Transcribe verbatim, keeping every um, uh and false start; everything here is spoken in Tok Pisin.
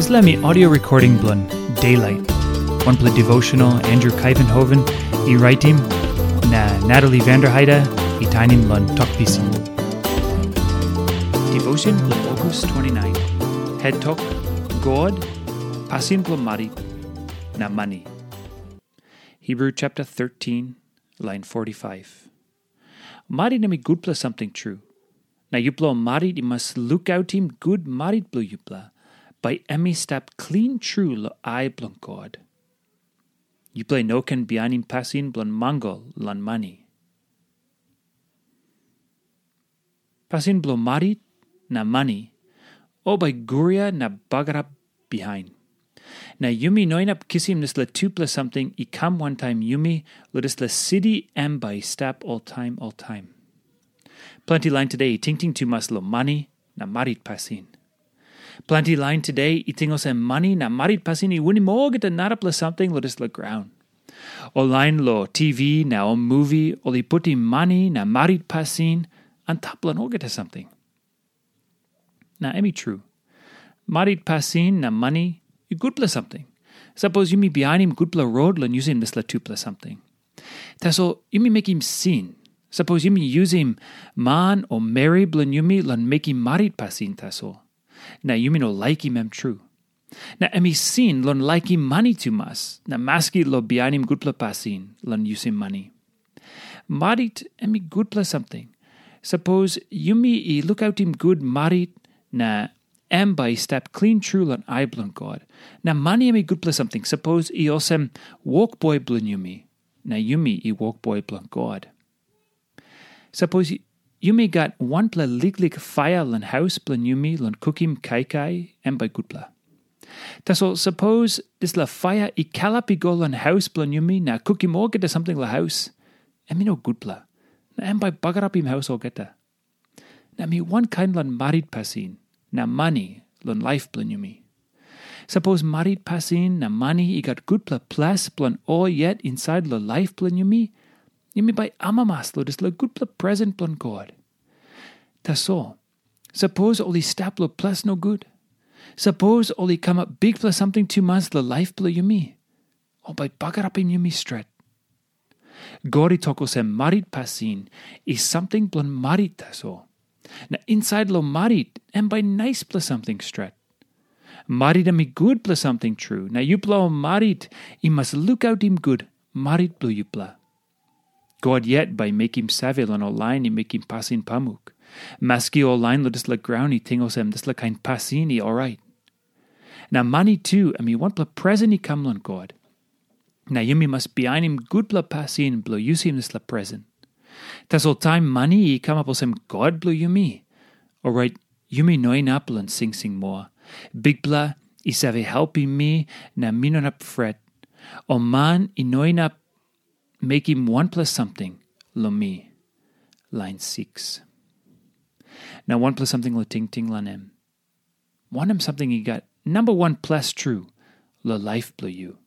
Dispela mi audio recording bilong Daylight, wanpela devotional Andrew Kaivenhoven i raitim, na Natalie Vanderheide i tainim long Tok Pisin. Devotion bilong August twenty-nine. Head Tok, God, pasin bilong marit, na mani. Hebrew chapter thirteen, line forty-five. Marit em i gutpela samting tru. Na yupela ol marit i mas lukautim gut marit bilong yupela, bai em i stap klin tru long ai bilong God. Yupela i no ken bihainim pasin bilong mangal long mani. Pasin bilong marit na mani, ol bai guria na bagarap bihain. Na yumi no inap kisim dispela tupela samting i kam wantaim yumi, long dispela siti em bai i stap oltaim oltaim. Planti lain today i tingting tumas long mani na marit pasin. Planti lain today i ting olsem mani na marit pasin i winim olgeta narapela samting long dispela graun. Ol lain long T V na ol muvi, ol i putim mani na marit pasin antap long olgeta samting. Na em i tru. Marit pasin na mani i gutpela samting. Sapos yumi bihainim gutpela rot long yusim dispela tupela samting. Tasol yumi mekim sin. Sapos yumi yusim man o meri bilong yumi long mekim marit pasin tasol, na yumi no laikim em tru. Na em i sin long laikim mani tumas, na maski long bihainim gutpela pasin long yusim mani. Marit em i gutpela samting. Sapos yumi i lukautim gut marit, na em bai i stap klin tru long ai bilong God. Na mani em i gutpela samting, sapos i olsem wokboi bilong yumi, na yumi i wokboi bilong God. Sapos yumi gat wanpela liklik paia long haus bilong yumi long kukim kaikai, em bai gutpela. Tasol sapos dispela paia i kalap i go long haus bilong yumi na kukim olgeta samting long haus, em i no gutpela, na em bai bagarapim haus olgeta. Na mi wankain long marit pasin na mani long laip bilong yumi. Sapos marit pasin na mani i gat gutpela ples bilong ol yet insait long laip bilong yumi, yumi bai amamas long dispela gutpela presen bilong God. Tasol, sapos ol i stap long ples nogut, sapos ol i kamap bikpela samting tumas long laip bilong yumi, ol bai bagarapim yumi stret. God i tok olsem, marit pasin i samting bilong marit tasol. Na insait long marit em bai naispela samting stret. Marit em i gutpela samting tru, na yupela ol marit i mas lukautim gut marit bilong yupela. God yet bai mekim save long ol lain i mekim pasin pamuk. Maski ol lain long dispela graun i ting olsem dispela kain pasin i orait. Na mani tu em i wanpela presen i kam long God. Na yumi mas bihainim gutpela pasin bilong yusim dispela presen. Tasol taim mani i kamap olsem god bilong yumi, orait yumi no inap long singsing moa. Bikpela i save helpim mi, na mi no inap fret. O man i no inap mekim wanpela samting long mi. Lain six. Na wanpela samting long tingting long em. Wanem samting i gat namba wan ples tru long laip bilong yu?